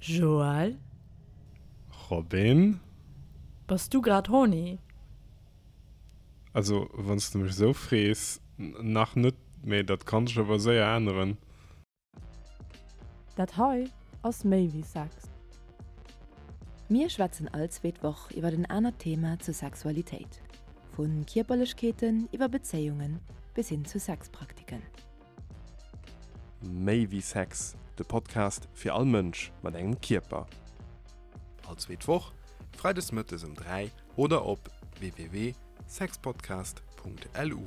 Joël? Robin? Bass du grad horny? Also, wann s de mech esou frees, nach net, mee dat kann sech awer séier änneren. Dat hei ass méi wéi Sex. Mir schwätzen all zweet Woch iwwer en anert Thema zur Sexualitéit, vu Kierperlechkeeten iwwer Bezéiungen bis hin zu Sexpraktiken. Méi wéi Sex, de Podcast fir all Mënsch mat engem Kierper. All zweet Woch, freides mëttes um 3 oder op www.sexpodcast.lu.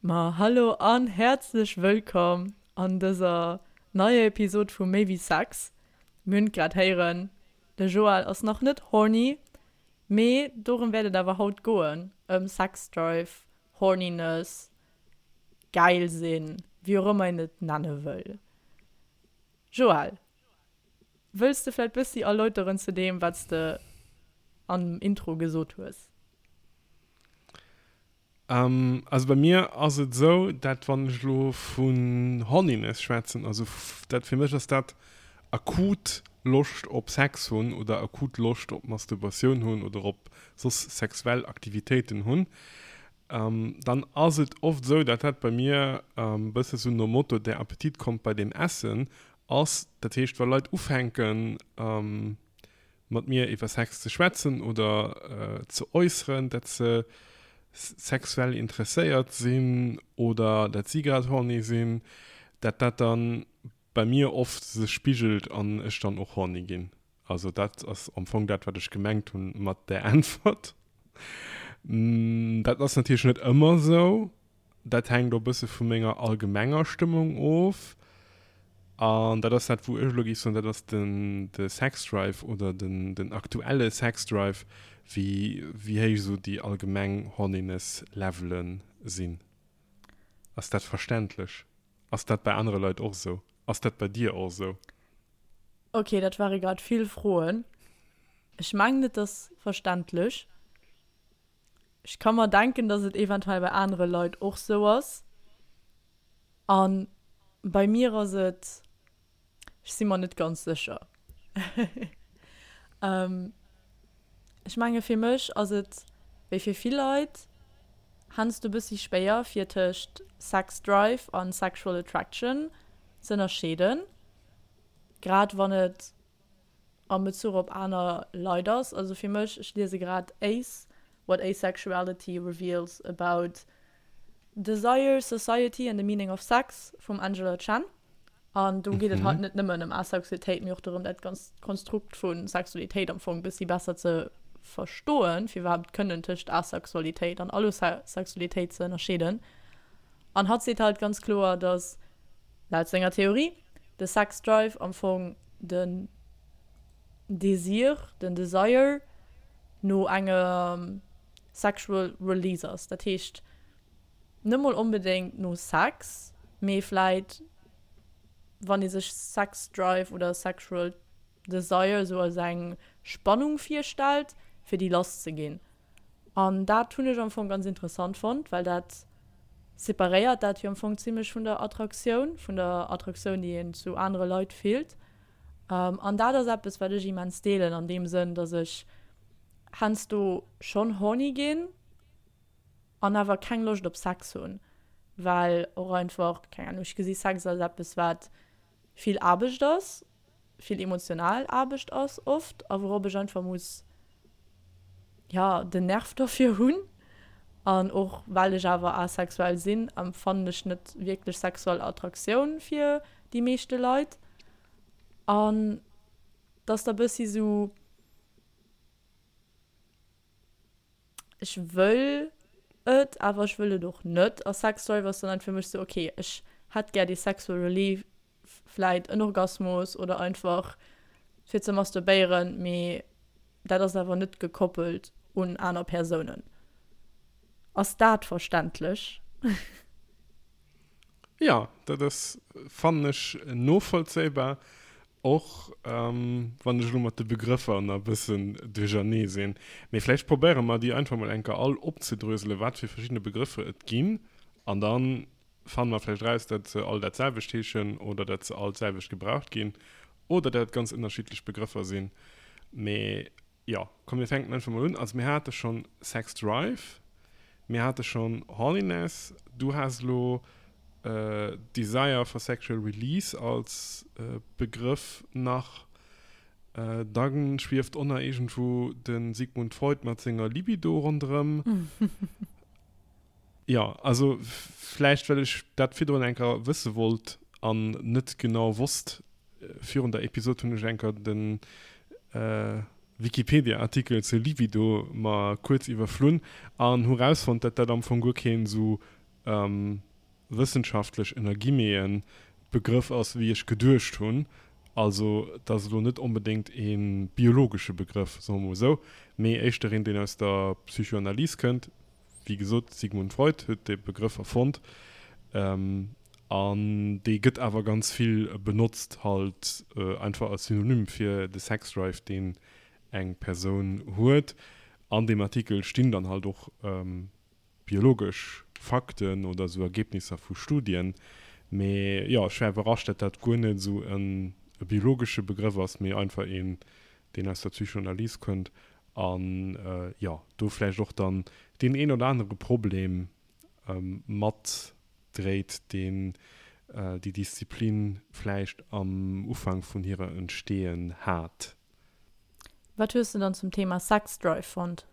Ma hallo an häerzlech wëllkomm an dëser neier Episod vu Méi wéi Sex. Mir hunn et grad héieren, de Joël ass nach net horny, Mee dorëm wäert et awer haut goen, ëm Sexdrive, Horniness, gäil sinn, wéi och ëmmer een et nenne wëll. Joël, wëlls de vläit bëssi erläuteren zu deem, wat s de am Intro gesot hues? Also bei mir ass et esou, dat wann ech elo vun Horniness schwätzen, also dat fir mech ass dat akut Loscht op Sex hunn oder akut Loscht op Masturbatioun hunn oder op soss sexuell Aktivitéiten hunn, dann ass et oft esou, dat dat bei mir e bësse sou nom Motto der Appetit kommt bei dem Essen ass. Dat heescht, wa Leit ufänken, mat mir iwwer Sex ze schwätzen oder ze äusseren, dat se sexuell interesséiert sinn oder dat si grad horny sinn, dat dat dann bei mir oft sech spigelt an ech dann och horny ginn. Also dat ass am Fong dat, wat ech gemengt hunn mat där Äntwert. Dat ass natierlech net ëmmer esou. Dat hänkt och e bësse vu menger allgemenger Stëmmung of. An dat ass dat, wou ech elo géif soen, dat ass den, de Sexdrive oder den, den aktuelle Sexdrive, wéi, wéi héich esou déi allgemeng Horniness-Levele sinn. Ass dat verständlech? Ass dat bei anere Leit och esou? Ass dat bei dir och esou? Ok, dat ware grad vill Froen. Ech mengen, et ass verständlech. Ech ka mer denken, dass et eventuell bei anere Leit och sou ass. A bei mir ass et, ech si mer net ganz sécher. Ech menge fir mech ass et wéi fir vill Leit heiansdo e bëssi schwéier fir tëscht Sex Drive a Sexual Attraction z'ënnerscheeden, grad wann et am Bezuch op aner Leit ass. Also fir mech, ech liese grad Ace, What Asexuality Reveals About Desire, Society and the Meaning of Sex vum Angela Chen. An do geet et halt net nëmmen ëm Asexualitéit, mee och dorëm, dat ganzt Konstrukt vu Sexualitéit am Fong e bëssi besser ze verstoen, fir iwwerhaapt kënnen tëscht Asexualitéit an Allosexualitéit ze ënnerscheeden. An hatt seet halt ganz kloer, dass laut senger Theorie de Sex Drive am Fong den Desir, den Desire no engem sexual release ass. Dat heescht net mol onbedéngt no Sex, mee vläit wann ee sech Sex Drive oder sexual Desire esou als eng Spannung virstellt, fir déi lass ze ginn. An dat hunn ech am Fong ganz interessant fonnt, well dat separéiert dat jo am Fong zimmlech vun der Attraktioun, vun der Attraktioun, déi een zu anere Leit fillt. An dat ass eppes, wat ech immens deelen, an deem Sënn, dass ech heiansdo schonn horny ginn an awer keng Loscht op Sex hunn, well och einfach, keng Ahnung, ech gesi Sex als eppes, wat vill Aarbecht ass, vill emotional Aarbecht ass oft a wourop ech einfach muss, ja, den Nerv derfir hunn. An och well ech awer asexuell sinn, empfannen ech net wierklech sexuell Attraktioun fir déi meeschte Leit. An et ass da bëssi sou, ech wëll et, awer ech wëll et och net. A Sex Drive ass dann halt fir mech sou, okay, ech hätt gär dee sexual relief, vläit en Orgasmus oder einfach fir ze masturbéieren, mee dat ass awer net gekoppelt un aner Persounen. Ass dat verständlech? Jo, dat ass, fannen ech, novollzéibar, och wann ech elo mat de Begrëffer nach e bëssen duerchernee sinn. Mee vläicht probéiere mer déi einfach mol eng Kéier all opzedröselen, wat fir verschidde Begrëffer et ginn, an dann. Fanne mer vläicht eraus, dat se all dat selwecht heeschen oder dat se all d'selwecht gebraucht ginn oder dat et ganz ënnerschiddlech Begrëffer sinn. Mee jo, komm mir fänken einfach mol un. Also mir hate schonn Sex Drive, mir hate schonn Horniness, du has elo Desire for Sexual Release als Begrëff nach. Da schwieft och nach iergendwou de Sigmund Freud mat senger Libido ronderëm. Jo, also vläicht well ech dat virdrun eng Kéier wësse wollt an net genau wosst. Virun der Episod hunn ech eng Kéier de Wikipedia-Artikel zur Libido mer kuerz iwwerflunn an hu rausfonnt, dat dat am Fong guer keen esou wëssenschaftlech, ënner Guillemeten, Begrëff ass wéi ech geduecht hunn. Also et ass elo net onbedéngt ee biologesche Begrëff, soe mer mol esou, mee éischter een, deen aus der Psychoanalys kënnt. Wéi gesot, Sigmund Freud huet dee Begrëff erfonnt an dee gëtt awer ganz vill benotzt halt einfach als Synonym fir de Sexdrive, deen eng Persoun huet. An deem Artikel stinn dann halt och biologesch Fakten oder esou Ergebnisser vu Studien. Mee jo, ech war iwwerrascht, dat dat guer net esou e biologesche Begrëff ass, mee einfach een, deen aus der Psychoanalyse kënnt An jo, do vläicht och dann deen een oder anere Problem matdréit, deen déi Disziplin vläicht am Ufank vun hirer Entstehen hat. Wat hues de dann zum Thema Sexdrive fonnt?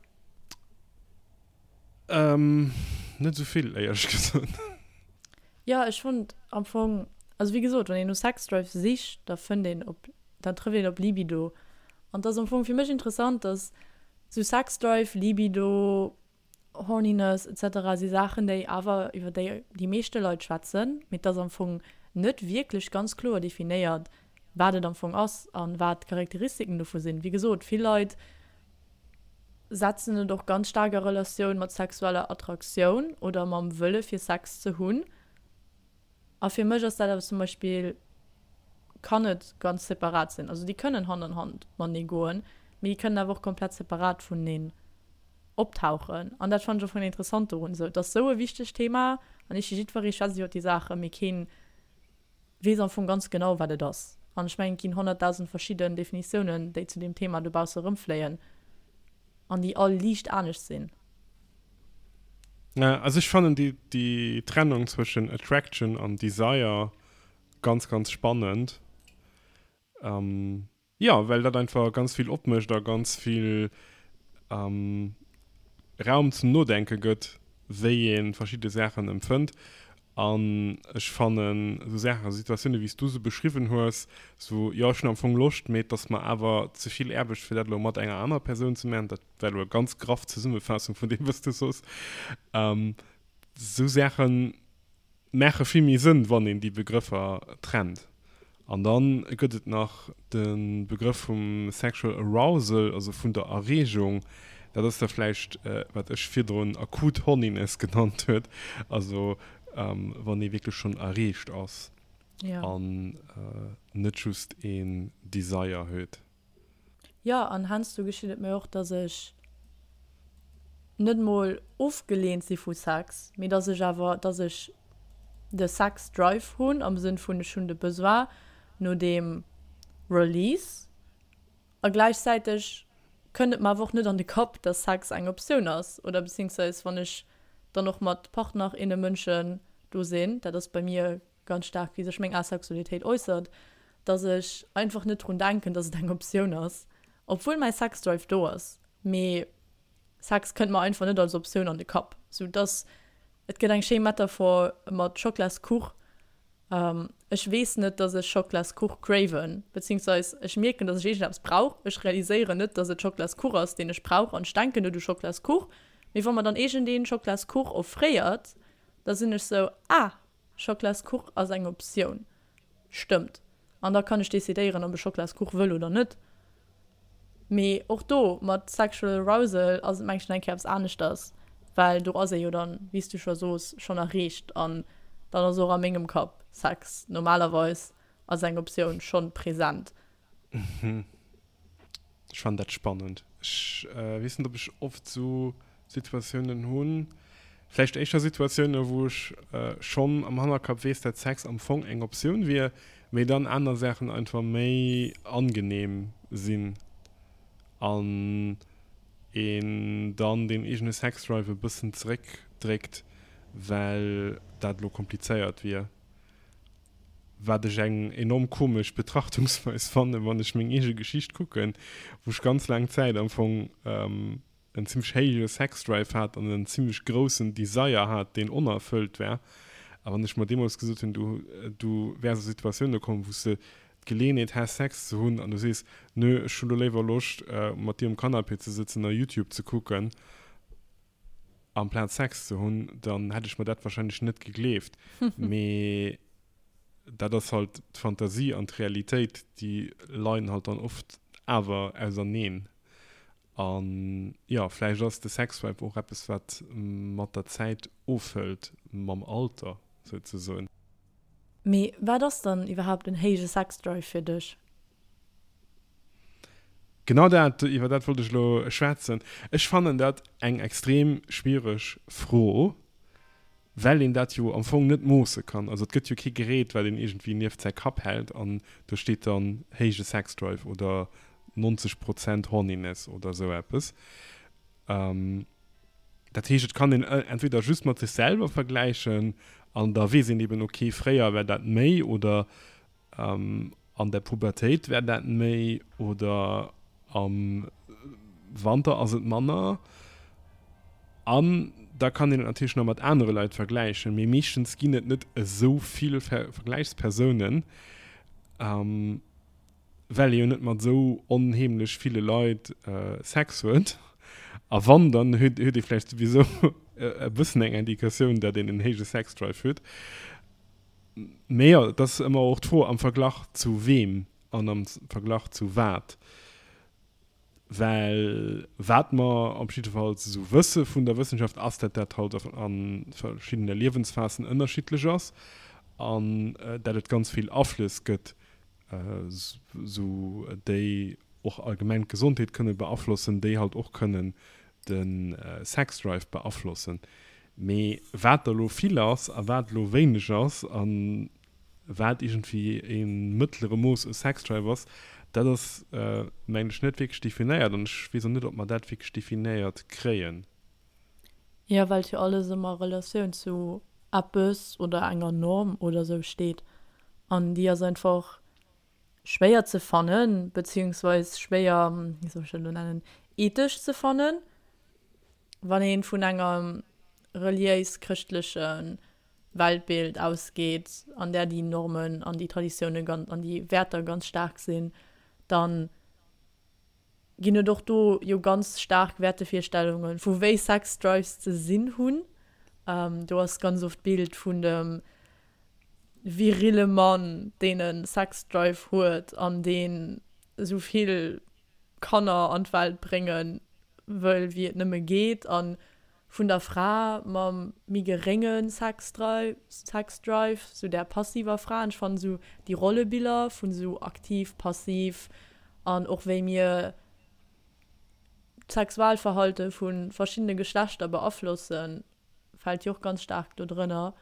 Net esou vill, éierlech gesot. Jo, ech fonnt am Fong, also wéi gesot, wann een no Sexdrive sicht, da fënnt een op, da trëfft een op Libido. An et ass am Fong fir mech interessant, dass sou Sexdrive, Libido, Horniness etc. Si Saachen, déi awer, iwwer déi déi meeschte Leit schwätzen, mee et ass am Fong net wierklech ganz kloer definéiert, wat et am Fong ass a wat d'Charakteristiken dovu sinn. Wéi gesot, vill Leit setzen et och ganz staark a Relatioun mat sexueller Attraktioun oder mam Wëlle fir Sex ze hunn. A fir mech ass dat awer zum Beispill, kann et ganz separat sinn. Also déi kënnen Hand an Hand matenee goen, mee déi kënnen awer och komplett separat vuneneen optauchen. An dat fannen ech och vun interessant dorun. Esou, et ass esou e wichtegt Thema an ech jiddweree schwätzt iwwer déi Saachen, mee keen weess am Fong ganz genau, wat et ass. An ech mengen, et ginn 100.000 verschidden Definitiounen, déi zu deem Thema dobausse erëmfléien an déi all liicht anescht sinn. Also ech fannen déi, déi Trennung zwëschen Attraction an Desire ganz, ganz spannend. Jo, well dat einfach ganz vill opmécht a ganz vill Raum zum Nodenke gëtt, wéi ee verschidde Saachen empfënnt. An ech fannen esou Saachen, Situatioune wéi s du se beschriwwen hues, esou, jo ech hunn am Fong Loscht, mee et ass mer awer ze vill Aarbecht fir dat elo mat enger anerer Persoun ze maachen, dat war elo e ganz graff Zesummefaassung vun deem wat s du sos, esou Saachen maache vill méi Sënn, wann een déi Begrëffer trennt. An da gëtt et nach de Begrëff vum sexual arousal, also vun der Erreegung. Dat ass da vläicht, wat ech virdrun akut Horniness genannt huet, also wann ee wierklech schonn erreegt ass an net just een Desire huet. Jo, an heiansdo geschitt et mir och, dass ech net mol ofgeleent si vu Sex, mee dass ech awer, dass ech de Sex Drive hunn, am Sënn vun ech hunn de Besoin no deem Release a gläichzäiteg kënnt et mer awer och net an de Kapp, dass Sex eng Optioun ass oder beziehungsweise wann ech dann och mat Partner, inne Mënschen do sinn, dat ass bei mir ganz staark wéi sech meng Asexualitéit äussert, dass ech einfach net drun denken, dass et eng Optioun ass, obwuel mäi Sexdrive do ass, mee Sex kënnt mer einfach net als Optioun an de Kapp, sou dass et gëtt eng schéi Metaphor mat Schoklaskuch, ech weess net, dass ech Schoklaskuch craven, beziehungsweise ech mierken, dass ech iergendeppes brauch, ech realiséieren net, dass et Schoklaskuch ass, deen ech brauch an ech denken net u Schoklaskuch, mee wa mer dann iergendeen Schoklaskuch offréiert, da sinn ech sou, ah, Schoklaskuch ass eng Optioun. Stëmmt. An da kann ech decidéieren, ob ech Schoklaskuch wëll oder net. Mee och do mat Sexual Arousal ass et mengen ech nach eng Kéier eppes aneschters, well do ass ee jo dann, wéi s du scho sos, schonn erreecht an dann ass och a mengem Kapp Sex normalerweis als eng Optioun schonn present. Ech fannen dat spannend. Ech weess net, ob ech oft esou Situatiounen hunn. Vläicht éischter Situatiounen, wou ech schonn am Hannerkapp weess, dat Sex am Fong eng Optioun wier, mee dann aner Saachen einfach méi angenehm sinn an een dann deen eegene Sexdrive e bëssen zeréckdréckt, well dat elo komplizéiert wier. Wat ech eng enorm komesch Betrachtungsweis fannen, wann ech meng eege Geschicht kucken, wou ech ganz laang Zäit am Fong en zimmlech héije Sexdrive hat an en zimmlech groussen Desire hat, deen onerfëllt war. A wann ech mer deemools gesot hunn, du, du wäers a Situatioune kommen, wou s de d'Geleeënheet häss, Sex ze hunn, an du sees, nö, ech hu lo léiwer Loscht, mat dir um Canapé ze sëtzen a YouTube ze kucken, amplaz Sex ze hunn, dann hätt ech mer dat wahrscheinlech net gegleeft. Mee dat ass halt d'Fantasie an d'Realitéit, déi leien halt dann oft awer auserneen. An jo, vläicht ass de Sexdrive och eppes, wat mat der Zäit ofhëlt, mam Alter souzesoen. Mee wat ass dann iwwerhaapt en héije Sexdrive fir dech? Genau dat, iwwer dat wollt ech elo schwätzen. Ech fannen dat eng extrem schwiereg Fro. Well een dat jo am Fong net moosse kann. Also et gëtt jo kee Gerät, wat een iergendwéi nieft säi Kapp hält an do steet dann héije Sexdrive oder 90 Prozent Horniness oder esou eppes. Dat heescht, et kann een entweder just mat sech selwer vergläichen an da weess een eben, okay, fréier war dat méi oder An der Pubertéit wär dat méi oder am Wanter ass et manner. An da kann een et natierlech nach mat anere Leit vergläichen, mee meeschtens ginn et net esou vill Vergläichspersounen, well ee jo net mat esou onheemlech ville Leit Sex huet. A wann, dann huet ee vläicht souwisou e bëssen eng Indikatioun, datt een en héije Sexdrive huet. Mee jo, et ass ëmmer och d'Fro, am Verglach zu weem an am Verglach zu wat. Well wat mer op jiddefalls esou wësse vun der Wëssenschaft, ass, dat dat halt a verschiddene Liewensphasen ënnerschiddlech ass an dat et ganz vill Aflëss gëtt, esou déi och allgemeng d'Gesondheet kënne beaflossen, déi halt och kënnen de Sexdrive beaflossen. Mee wat da lo vill ass a wat lo wéineg ass a wat iergendwéi e mëttlere Mooss u Sexdrive ass, dat ass mengen ech net wierklech definéiert an ech weess och net, ob mer dat wierklech definéiert kréien. Jo, well et jo alles ëmmer a Relatioun zu eppes oder enger Norm oder sou steet an déi ass einfach schwéier ze fannen, beziehungsweis schwéier, wéi soll ech dat elo nennen, ethesch ze fannen, wann ee vun engem reliéis-chrëschtleche Weltbild ausgeet, an där déi Normen an déi Traditioune ganz an déi Wäerter ganz staark sinn, dann ginn et och do jo ganz staark Wäertevirstellunge vu wéi Sex-Drives ze sinn hunn. Do ass ganz oft d'Bild vun dem virille Mann, deen e Sex-Drive huet an deen esou vill Kanner an d'Welt brénge wëll wéi et nëmme geet a vun der Fra mam méi gerénge Sexdrive, Sexdrive, sou där passiver Fra. An ech fannen sou déi Rollebiller vun sou aktiv, passiv an och wéi mir d'Sexualverhalte vu verschiddene Geschlechter beaflossen, fält jo och ganz staark do drënner.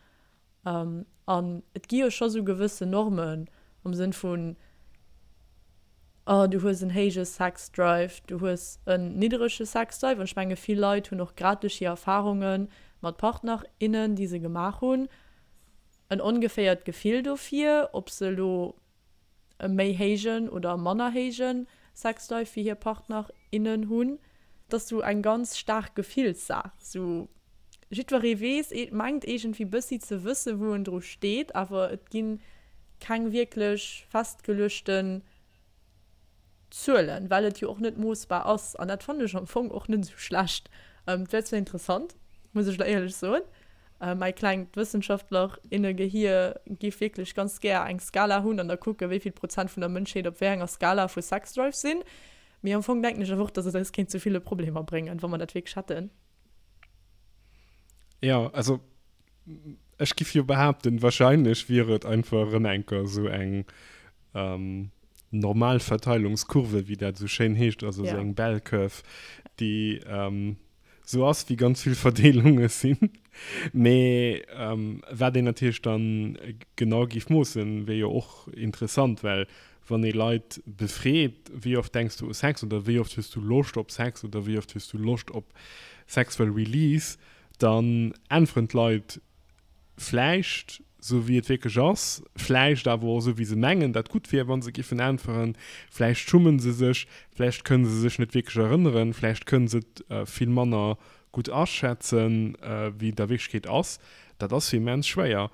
An et gi jo scho sou gewëssen Normen am Sënn vun, oh du hues en héije Sex Drive, du hues en nidderege Sex Drive. An ech menge vill Leit hunn och grad duerch hir Erfarunge mat Partner, innen, déi se gemaach hunn, en ongeféiert Gefill dofir, ob se elo e méi héijen oder manner héije Sexdrive wéi hir Partner, innen hunn. Et ass sou eng ganz staark Gefillssaach. Sou jiddweree weess, mengt iergendwéi bëssi ze wësse wou en dru steet, awer et gi keng wierklech festgeluechten Zuelen, well et jo och net moossbar ass. An dat fannen ech am Fong och net esou schlecht. Et wär zwar interessant, muss ech elo éierlech soen, mäi klengt Wëssenschaftler-inne-Gehier géif wierklech ganz gär eng Skala hunn an da kucken, wéi vill Prozent vun der Mënschheet op wéi enger Skala vu Sexdrive sinn. Mee am Fong denken ech awer och, dass et eis kéint zu ville Problemer bréngen, wa mer dat wierklech hätten. Jo, also ech giff jo behaapten, wahrscheinlech wier et einfach erëm enker esou eng Normalverteilungskurve, wéi dat esou schéin heescht, also esou eng Bell Curve, déi. Sou ass, wéi ganz vill Verdeelunge sinn. Mee wat een natierlech dann genau géif moossen, wier jo och interessant, well wann ee Leit befreet, wéi oft denks du u Sex oder wéi oft hues du Loscht op Sex oder wéi oft hues du Loscht op sexual release, dann äntweren d'Leit vläicht sou wéi et wierklech ass, vläicht awer och sou wéi se mengen dat gutt wier wa se giffen äntweren, vläicht schummen se sech, vläicht kënne se sech net wierklech erënneren, vläicht kënne se et vill manner gutt aschätzen wéi et a Wierklechkeet ass. Dat ass jo immens schwéier.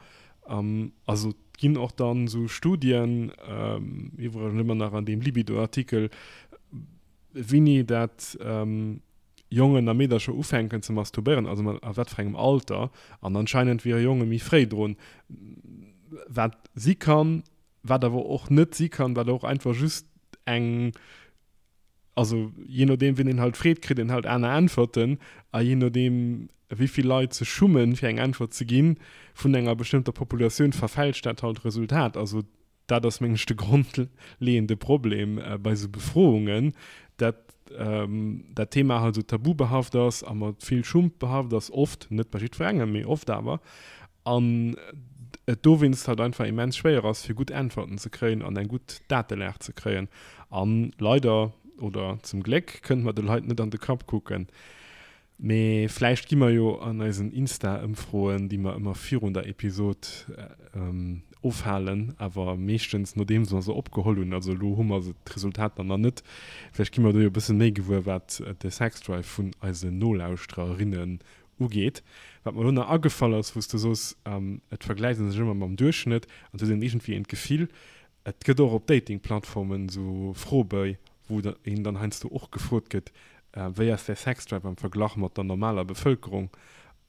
Also et ginn och dann sou Studien, iwwregens ëmmer nach an deem Libido-Artikel, Wéini dat Jongen a Meedercher ufänken ze masturbéieren, also mat a wat fir engem Alter, an anscheinend wiere Jonge méi fréi drun, wat si kann, wat awer och net si kann, wat och einfach just eng, also jee nodeem wien een halt freet, kritt een halt aner Äntwerten, a jee nodeem wéi vill Leit sech schummen fir eng Äntwert ze ginn vun enger bestëmmter Populatioun, verfälscht dat halt d'Resultat. Also Dat ass, mengen ech, de grondleeënde Problem bei esou Befroungen, dat dat Thema halt esou tabubehaft ass a mat vill Schump behaft ass, oft, net bei jiddwerengem, mee oft awer, an et dowéinst halt einfach immens schwéier ass, fir gutt Äntwerten ze kréien an eng gutt Datelag ze kréien. A leider, oder zum Gléck, kënne mer de Leit net an de Kapp kucken. Mee vläicht gi mer jo an eisen Insta-Ëmfroen, déi mer ëmmer virun der Episod ofhalen, awer meeschtens nodeems mer se opgeholl hunn, also elo hu mer se d'Resultater nach net, vläicht gi mer do jo e bësse méi gewuer, wat de Sexdrive vun eisen Nolauschtererinnen ugeet. Wat mer elo nach agefall ass, wou s de soos, et vergläicht ee sech ëmmer mam Duerchschnëtt an et huet een iergendwéi een d'Gefill, Et gëtt och op Dating-Plattformen esou Froebéi, wou een dann heiansdo och gefrot gëtt, Wéi ass däi Sexdrive am Verglach mat der normaler Bevëlkerung?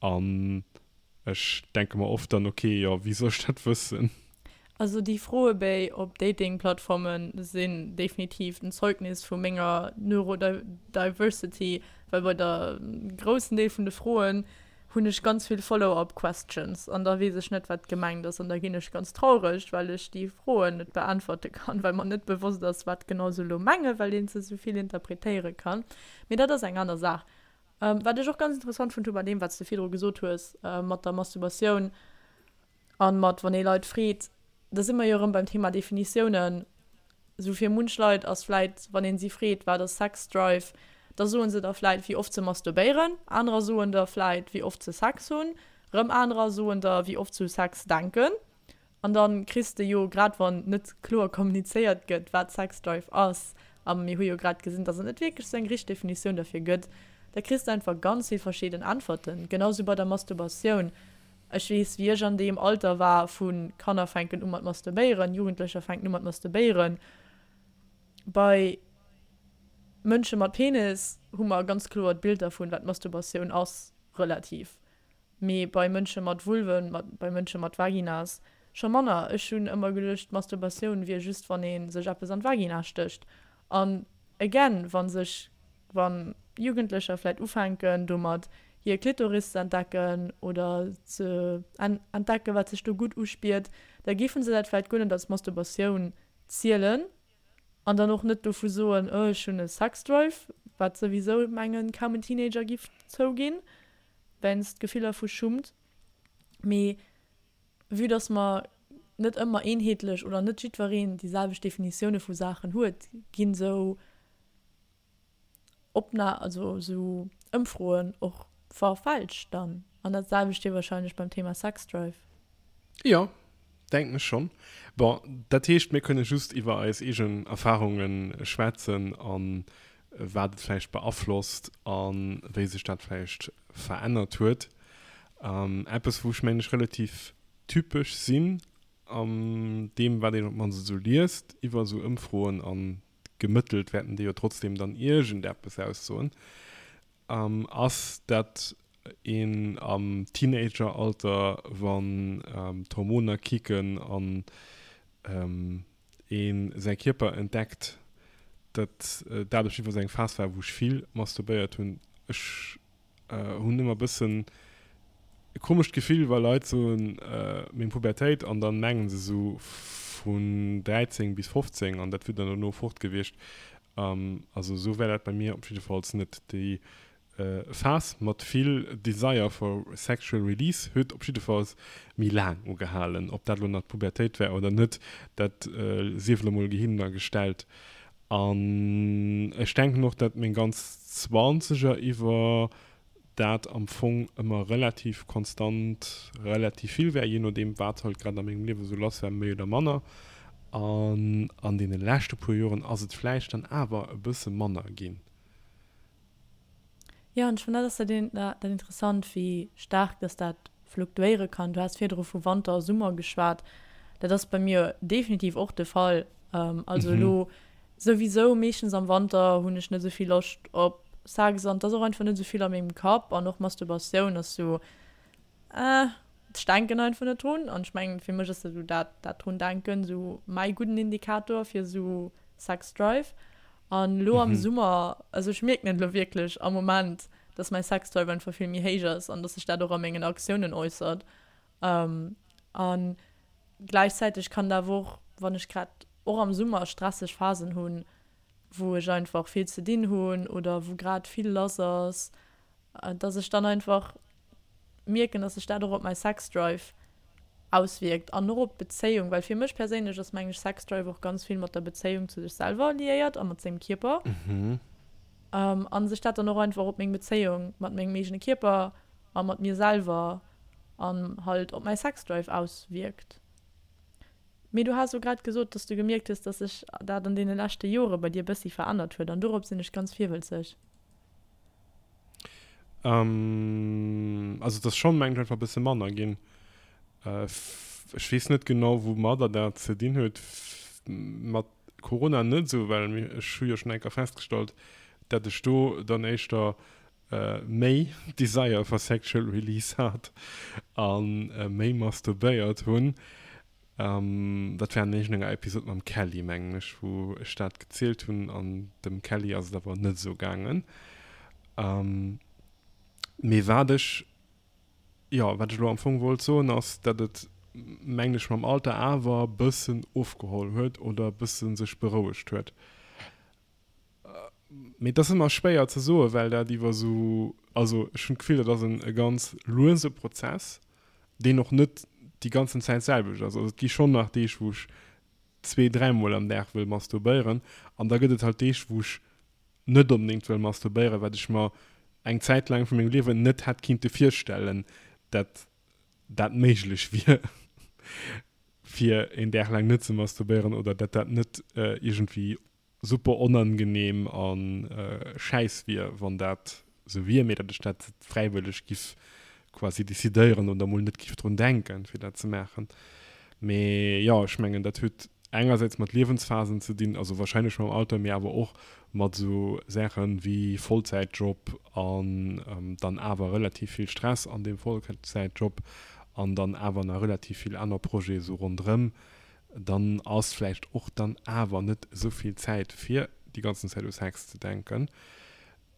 An ech denke mer oft dann, Ok, jo, wéi soll ech dat wëssen? Also déi Froebéi op Dating-Plattforme sinn definitiv en Zeugnis vu menger Neurodiversity, well bei der groussen Deel vun de Froen hunn ech ganz vill Follow-up questions an da weess ech net wat gemengt ass an da ginn ech ganz traureg, well ech déi Froen net beäntwerte kann, well mer net bewosst ass wat genau se elo mengen, well een se esou vill interpretéiere kann. Mee dat ass eng aner Saach. Wat ech och ganz interessant fonnt hu bei deem wat s de virdru gesot hues mat der Masturbatioun an mat wann ee Leit freet, da si mer jo erëm beim Thema Definitiounen. Esou fir munch Leit ass vläit, wann een si freet, wat ass Sex Drive, da soen se der vläit wéi oft se masturbéieren, anerer soen der vläit wéi oft se Sex hunn, rëm anerer soen der wéi oft se u Sex denken. An dann kriss de jo, grad wann net kloer kommunizéiert gëtt wat Sex Drive ass, a mir hu jo grad gesinn, dass et net wierklech sou eng richteg Definitioun derfir gëtt, da kriss de einfach ganz vill verschidden Äntwerten. Genau sou bei der Masturbatioun. Ech weess, wéi ech an deem Alter war vu Kanner fänken u mat masturbéieren, Jugendlecher fänken u mat masturbéieren. Bei Mënsche mat Penis hu mer ganz kloer d'Bild dervun, wat Masturbatioun ass, relativ. Mee bei Mënsche mat Vulven, bei Mënsche mat Vaginas scho manner. Ech hunn ëmmer geduecht, Masturbatioun wier just, wann ee sech eppes an d'Vagina stécht. An again, wa sech, wa Jugendlecher vläit ufänken domat hir Klitoris ze entdecken oder ze entdecken, wat sech do gutt uspiert, da géife se dat vläit guer net als Masturbatioun zielen an dann och net dovu soen, oh ech hunn e Sexdrive, wat souwisou mengen kaum en Teenager giff zouginn, wéinst Gefiller vu Schummt. Mee Vue dass mer net ëmmer eenheetlech oder net jiddwereen déi selwecht Definitioune vu Saachen huet, ginn esou Opna also esou Ëmfroen och verfälscht dann. An dat selwecht wier wahrscheinlech beim Thema Sexdrive. Jo, denken ech schonn. Bon, dat heescht, mir kënne just iwwer eis eegen Erfarunge schwätzen an wat et vläicht beaflosst a wéi sech dat vläicht verännert huet. Eppes, wou ech mengen ech relativ typesch sinn an deem, wat een op d'mannst esou liest iwwer esou Ëmfroen, a gemëttelt wäerten déi jo trotzdeem dann iergendeppes aussoen, ass, dat een am Teenageralter, wann d'Hormoner kicken an ee säi Kierper entdeckt, datt dat op jiddwer Fall eng Phas war, wou ech vill masturbéiert hunn. Ech hunn ëmmer e bëssen e komescht Gefill, wa Leit soen, meng Pubertéit, an dann mengen se esou vun 13 bis 15 an dat wier dann dono fort gewiescht. Also esou war dat bei mir op jiddefalls net. Déi. Phas mat vill Desire for sexual release huet op jiddefalls méi laang ugehalen. Ob dat elo nach d'Pubertéit war oder net, dat sief elo mol gehinner gestellt. An ech denken och, dat meng ganz Zwanzeger iwwer dat am Fong ëmmer relativ konstant relativ vill war, jee nodeem wat halt grad a mengem Liewe sou lass war, méi oder manner. An an deene leschte puer Joren ass et vläicht dann awer e bësse manner ginn. Jo, an ech fannen dat ass dat dat interessant, wéi staark dass dat fluktuéiere kann. Du has virdru vu Wanter a Summer geschwat. Dat ass bei mir definitiv och de Fall. Also elo souwisou meeschtens am Wanter hunn ech net esou vill Loscht op Sex an et ass och einfach net esou vill a mengem Kapp an och Masturbatioun ass sou, eh, ech denken einfach net drun. An ech mengen, fir mech ass esou dat dat drun denken esou mäi gudden Indikator fir esou Sex Drive. An elo am Summer, also ech mierken et elo wierklech am Moment, dass mäi Sex Drive einfach vill méi héich ass an dass sech dat och a mengen Aktiounen äussert. An gläichzäiteg kann et awer och, wann ech grad och am Summer stresseg Phasen hunn, wou ech einfach vill ze dinn hunn oder wou grad vill lass ass, dass ech dann einfach mierken, dass sech dat och op mäi Sex Drive auswierkt an och op d'Bezéiung, well fir mech perséinlech ass mengen ech Sex Drive och ganz vill mat der Bezéiung zu sech selwer liéiert a mat sengem Kierper an sech dat dann och einfach op meng Bezéiung mat mengem eegene Kierper a mat mir selwer an halt op mäi Sex Drive auswierkt. Mee du has o grad gesot, dass du gemierkt hues, dass sech dat an deene leschte Jore bei dir bëssi verännert huet an dorop sinn ech ganz virwëlzeg. Ähm, also et ass schonn, mengen ech, einfach e bësse manner ginn. Ech weess net genau, woumadder dat ze dinn huet. Mat Corona net esou, well ech hu jo schonn eng Kéier festgestallt, dat ech do dann éischter méi Desire for sexual release hat a méi masturbéiert hunn. Dat war an iergendenger Episod mam Kelly, mengen ech, wou ech dat gezielt hunn an dem Kelly ass et awer net esou gaangen. Mee wat ech, jo, wat ech elo am Fong wollt soen, ass, dat et, mengen ech, mam Alter awer bëssen ofgeholl huet oder bësse sech berouegt huet. Mee et ass ëmmer schwéier ze soen, well dat iwwer esou, also ech hunn d'Gefill, dat ass en e ganz luese Prozess, deen och net déi ganzen Zäit d'selwecht ass. Also et gi schonn nach Deeg, wou ech zwee-, dräimol am Dag wëll masturbéieren an da gëtt et halt Deeg, wou ech net onbedéngt wëll masturbéieren, wat ech mer eng Zäit laang vu mengem Liewen net hätt kinnte virstellen, dat dat méiglech wier, fir een Dag laang net ze masturbéieren oder dat dat net iergendwéi super onangenehm a schäiss wier, wann dat sou wier, mee datt ech dat fräiwëlleg giff quasi decidéieren oder mol net giff drun denken, fir dat ze maachen. Mee jo, ech mengen, dat huet engersäits mat Liewensphasen ze dinn, also wahrscheinlech mam Alter, mee awer och mat sou Saachen wéi Vollzäitjob an dann awer relativ vill Stress an deem Vollzäitjob an dann awer nach relativ vill aner Projete sou ronderëm. dann ass vläicht och dann awer net esou vill Zäit fir déi ganzen Zäit u Sex ze denken.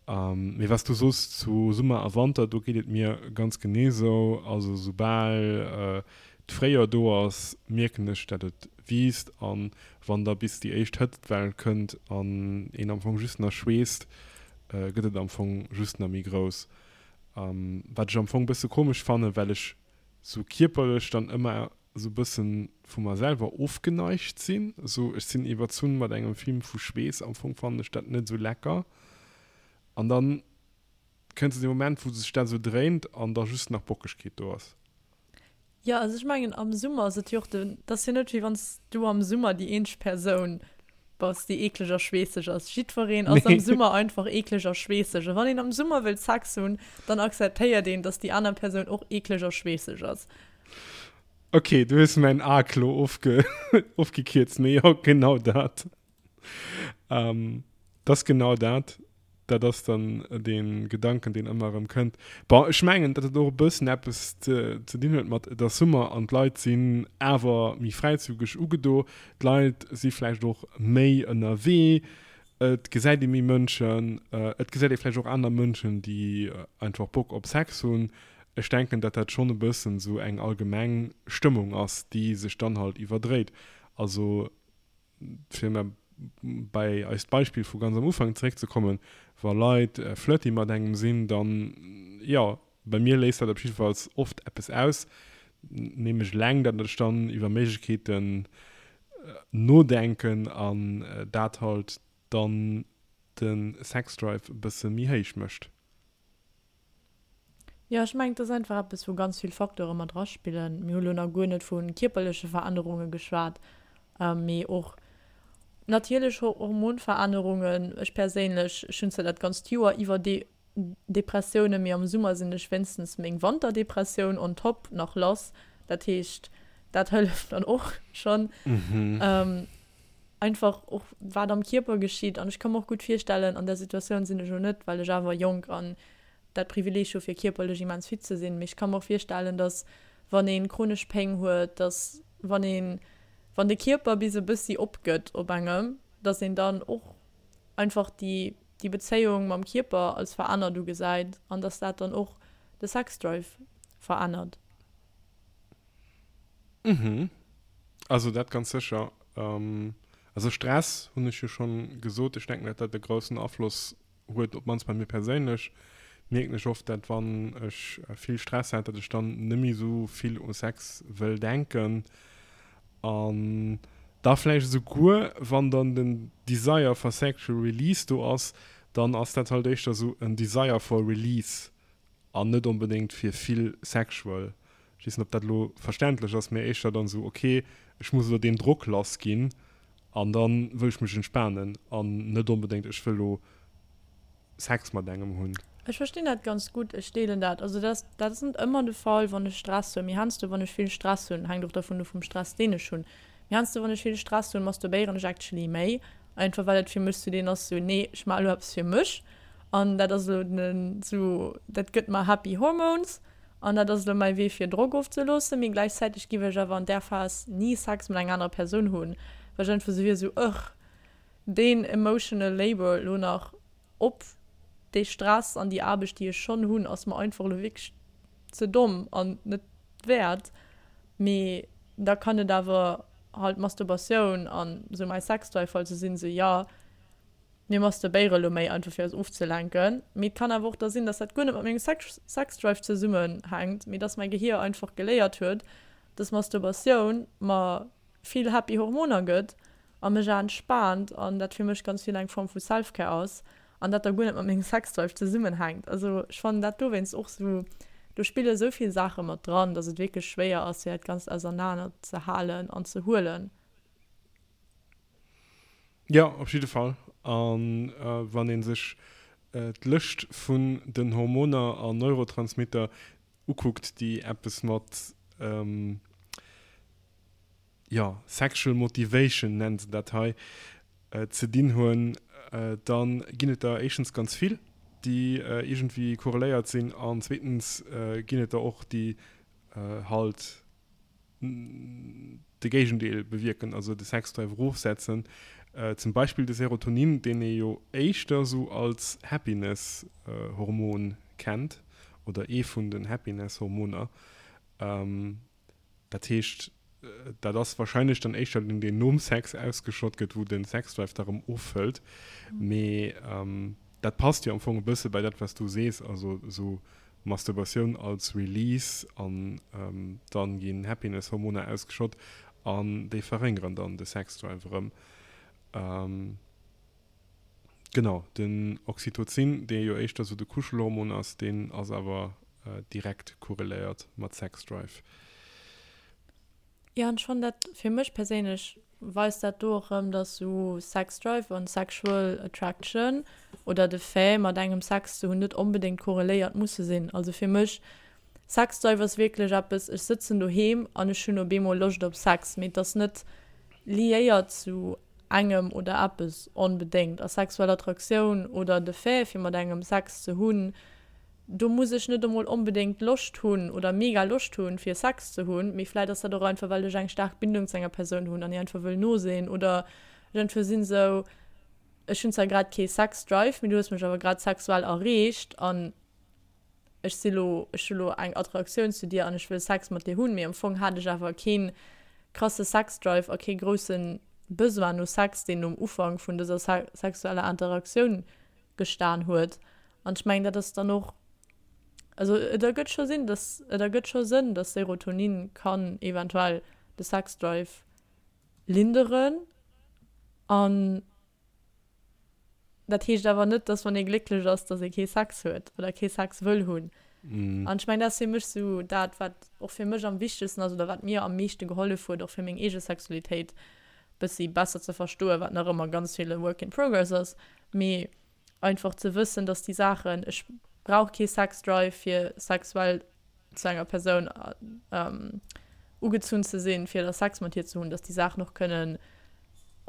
Mee was du soos zu Summer a Wanter, do geet et mir ganz genee esou. Also soubal d'Fréijoer do ass, mierken ech dat et wiisst an wann da bis déi éischt Hëtztwell kënnt an een am Fong just nach schweesst, gëtt et am Fong just nach méi grouss. Wat ech am Fong bësse komesch fannen, well ech sou kierperlech dann ëmmer esou bëssen vu mer selwer ofgeneigt sinn, esou ech sinn iwwerzunn mat engem Film vu Schweess, am Fong fannen ech dat net esou lecker an dann kënnt esou dee Moment wou sech dat esou dréint an da just nach Bockegkeet do ass. Jo, also ech mengen am Summer ass et jo och den, et ass jo net wéi wann s du am Summer déi eenzeg Persoun bass déi eekleg a schweesseg ass. Jiddwereen ass am Summer einfach eekleg a schweesseg a wann een am Summer wëllt Sex hunn, dann akzeptéiert een, dass déi aner Persoun och eekleg a schweesseg ass. Ok, du hues mäin Arc lo ofge ofgekierzt, mee jo, genau dat. Ähm, dat ass genau dat. Dat ass dann dee Gedanken, deen ëmmer erëm kënnt. Bon, ech mengen, datt et och e bëssen eppes ze, ze dinn huet mat, et ass Summer an d'Leit sinn awer méi fräizügeg ugedo. D'Leit si vläicht och méi ënnerwee. Et gesäit ee méi Mënschen. Et gesäit ee vläicht och aner Mënschen, déi einfach Bock op Sex hunn. Ech denken, datt dat schonn e bëssen esou eng allgemeng Stëmmung ass, déi sech dann halt iwwerdréit. Also fir mä. bei eist Beispill vu ganz am Ufank zeréckzekommen, wa Leit flirty mat engem sinn, dann, jo, bei mir léist dat op jiddefalls oft eppes aus, nämlech eleng, datt ech dann iwwer Méiglechkeeten nodenken an dat halt dann de Sexdrive e bësse méi héich mécht. Jo, ech mengen, et ass einfach eppes, wou ganz vill Facteure mat eraspillen. Mir hu lo nach guer net vu kierperleche Verännerunge geschwat, mee och natierlech Hormonverännerungen. Ech perséinlech, ech hunn zwar dat ganzt Joer iwwer Depressiounen, mee am Summer sinn ech wéinstens meng Wanterdepressioun on top nach lass. Dat heescht, dat hëlleft dann och schonn. Einfach och wat am Kierper geschitt. An ech ka mer och gutt virstellen, an där Situatioun sinn ech elo net, well ech awer jonk an dat Privileeg hu fir kierperlech immens fit ze sinn. Mee ech ka mer och virstellen, datt wann ee chronesch Péng huet, datt wann een, wann de Kierper bis e bëssi opgëtt op engem, datt een dann och einfach déi, déi Bezéiung mam Kierper als verännert ugesäit an datt dat dann och de Sexdrive verännert. Mhm. Also dat ganz sécher. Also Stress hunn ech jo schonn gesot. Ech denken, datt dat e groussen Afloss huet, op d'mannst bei mir perséinlech, mierken ech oft, dat wann ech vill Stress hat, dat ech dann net méi esou vill u Sex wëll denken an da vläicht esouguer wann dann den Desire for sexual release do ass, dann ass dat halt éischter esou en Desire for release an net onbedéngt fir vill sexual. Ech weess net, ob dat elo verständlech ass, mee éischter dann esou, ok, ech muss elo deen Drock lass ginn an dann wëll ech mech entspanen an net onbedéngt, ech wëll elo Sex mat engem hunn. Ech verstinn dat ganz gutt, ech deelen dat. Also dat ass, dat ass net ëmmer de Fall, wann ech Stress hunn, mee heiansdo wann ech vill Stress hunn, hänkt och dervun of vum Stress deen ech hunn, mee heiansdo wann ech vill Stress hunn, masturbéieren ech actually méi, einfach well et fir mech sou deen ass, sou nee, ech maache elo eppes fir mech an dat ass elo den, sou dat gëtt mer happy hormones. An dat ass elo mäi Wee fir Drock ofzeloossen, mee gläichzäiteg giff ech awer an där Phas ni Sex mat enger anerer Persoun hunn, well ech einfach sou wier, sou ugh, deen emotional labour elo nach op dee Stress an déi Aarbecht déi ech schonn hunn, ass mer einfach elo wierklech ze domm an net wäert. Mee da kann et awer halt Masturbatioun an sou mäi Sexdrive halt sou sinn, sou jo, Mir masturbéiere lo méi einfach fir eis ofzelenken, mee et kann awer och da sinn, dass dat guer net mat mengem Sexdrive zesummenhänkt, mee dass mäi Gehier einfach geléiert huet, dass Masturbatioun mer vill happy Hormoner gëtt a mech entspaant an dat fir mech ganz vill eng Form vu Self-Care ass an dat da guer net mat mengem Sexdrive zesummenhänkt. Also ech fannen dat dowéinst och sou, do spille sou vill Saache mat dran, dass et wierklech schwéier ass fir dat Ganzt ausernaner ze halen an ze huelen. Jo, op jidde Fall. A wann ee sech d'Lëscht vun den Hormoner an Neurotransmitter ukuckt, déi eppes mat, jo, sexual motivation nennen se dat hei, ze dinn hunn, da ginn et der éischtens ganz vill, déi iergendwéi korreléiert sinn, an zweetens ginn et der och, déi halt de Géigendeel bewierken, also de Sexdrive erofsetzen. Zum Beispill de Serotonin, deen ee jo éischter esou als Happiness-Hormon kennt, oder ee vun den Happiness-Hormoner. Dat heescht, dat ass warscheinlech dann éischter deen, deen nom Sex ausgeschott gëtt, wou de Sexdrive da rëm ofhëlt. Mee dat passt jo am Fong e bësse bei dat, wat s du sees, also esou Masturbatioun als Release an dann ginn Happiness Hormoner ausgeschott an déi verréngeren dann de Sex Drive erëm. Genau, den Oxytocin, dee jo éischter sou de Kuschelhormon ass, deen ass awer direkt korreléiert mat Sex Drive. Jo, an ech fannen dat, fir mech perséinlech weist dat do och erëm, dass sou Sex Drive an Sexual Attraction oder de Fait mat engem Sex ze hunn net onbedéngt korreléiert musse sinn. Also fir mech, Sex Drive ass wierklech eppes, ech sëtzen doheem an ech hunn op eemol Loscht op Sex, mee et ass net liéiert zu engem oder eppes onbedéngt. A sexuell Attraktioun oder de Fait fir mat engem Sex ze hunn, Do muss ech net emol onbedéngt Loscht hunn oder mega Loscht hunn, fir Sex ze hunn, mee vläit ass dat och einfach, well ech eng staark Bindung zu enger Persoun hunn an hir einfach wëll no sinn oder ech einfach sinn esou, ech hunn zwar grad kee Sex-Drive, mee du hues mech awer grad sexuell erreecht an ech si lo, ech hu lo eng Attraktioun zu dir an ech wëll Sex mat dir hunn, mee am Fong hat ech awer kee krasse Sex-Drive a kee groussen. Besoin no Sex, deen um Ufank vun dëser sexueller Interaktioun gestan huet. An ech mengen, dat ass dann och, also et ergëtt scho Sinn, dass, et ergëtt scho Sënn, dass Serotonin kann eventuell de Sexdrive linderen. An Dat heescht awer net, dass wann ee glécklech ass, dass ee kee Sex huet oder kee Sex wëll hunn. An ech mengen, dat ass fir mech esou dat, wat och fir mech am wichtegsten ass oder wat mir am meeschte gehollef huet, och fir meng eege Sexualitéit bëssi besser ze verstoen, wat nach ëmmer ganz vill e Work in progress ass, mee einfach ze wëssen, dass déi Saachen, ech brauch kee Sex-Drive fir sexuell zu enger Persoun ugezunn ze sinn, fir da Sex mat hir ze hunn, dass déi Saachen och kënnen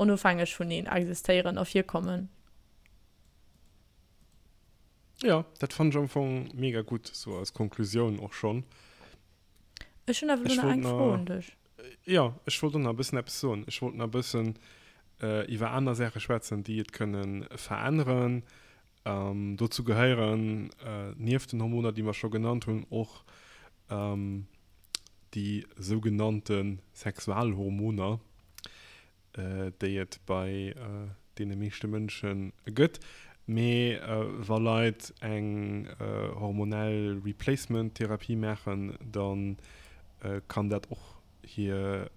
onofhängeg vuneen existéieren a virkommen. Jo, dat fannen ech am Fong mega gutt, sou als Konklusioun och schonn. Ech hunn awer elo nach eng Fro un dech. Jo, ech wollt och nach e bëssen eppes soen. Ech wollt nach e bëssen iwwer aner Saache schwätzen, déi et kënne veränneren. Dozou gehéieren nieft den Hormoner, déi mer scho genannt hunn, och déi sougenannte Sexualhormoner, déi et bei deene meeschte Mënsche gëtt. Mee wa Leit eng hormonell Replacement-Therapie maachen, da kann dat och hire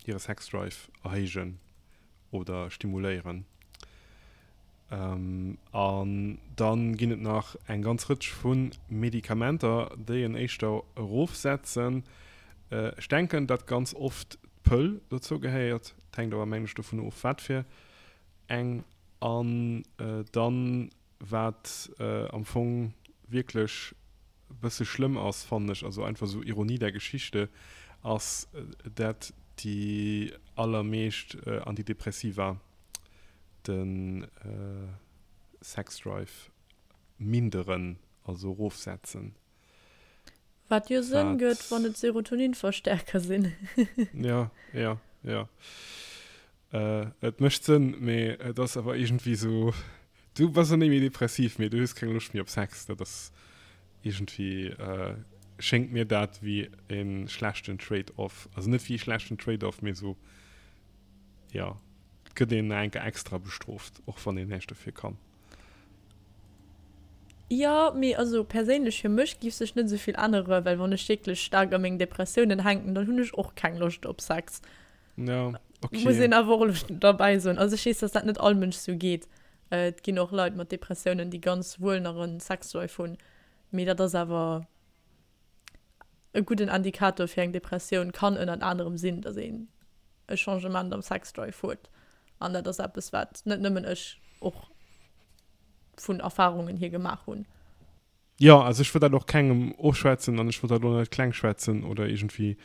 Sexdrive erhéijen oder stimuléieren. An dann ginn et nach eng ganz Rëtsch vu Medikamenter, déi en éischter erofsetzen. Ech denken, datt ganz oft d'Pëll dozou gehéiert, et hänkt awer mengen ech dovun of wat fir eng. An dann, wat am Fong wierklech e bësse schlëmm ass, fannen ech, also einfach esou Ironie der Geschichte, ass, dat déi allermeescht Antidepressiva de Sexdrive minderen, also erofsetzen. Wat jo Sënn gëtt, wann et Serotoninverstärker sinn. Ja, ja, ja. Et mécht Sënn, mee et ass awer iergendwéi esou, du bass net méi depressiv, mee du hues keng Loscht méi op Sex. Dat ass iergendwéi, schéngt mir dat wéi e schlechten Trade-off. Also net wéi e schlechten Trade-off, mee esou, jo, et gëtt een nach eng Kéier extra bestrooft, och wann een näischt dofir kann. Jo, mee also perséinlech fir mech giff sech net esou vill änneren, well wann ech wierklech staark a mengen Depressiounen hänken, dann hunn ech och keng Loscht op Sex. Ja, okay. Muss een awer och elo derbäi soen. Also ech weess, dass dat net all Mënsch sou geet. Et ginn och Leit mat Depressiounen, déi ganz wuel nach e Sexdrive hunn, mee dat ass awer e gudden Indikator fir eng Depressioun kann ënnert anerem sinn, dass een e Changement am Sexdrive huet. An dat ass eppes, wat net nëmmen ech och vun Erfarungen hier gemaach hunn. Jo, also ech wëll dat och kengem ofschwätzen an ech wëll dat och net kleng schwätzen oder iergendwéi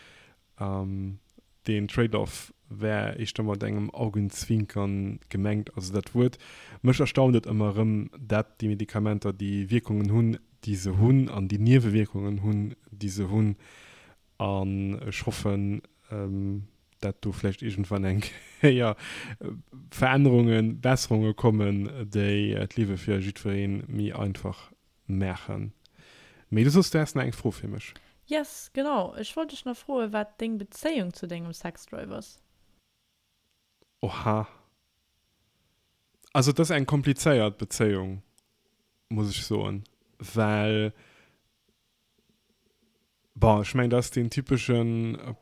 Deen Trade-off wär éischter mat engem Augenzwinkern gemengt. Also dat Wuert, mech erstaunt et ëmmer erëm, dat déi Medikamenter déi Wierkungen hunn, déi se hunn, an déi Niewewierkungen hunn, déi se hunn. An ech hoffen, dat do vläicht iergendwann eng Kéier Verännerungen, Besserunge kommen, déi d'Liewe fir jiddweree méi einfach Maachen. Mee du soss, du häss nach eng Fro fir mech. Yes, genau. Ech wollt dech nach froen, wat deng Bezéiung zu dengem Sexdrive ass. Oha. Also et ass eng komplizéiert Bezéiung, muss ech soen, well Bon, ech mengen, dat ass deen typesche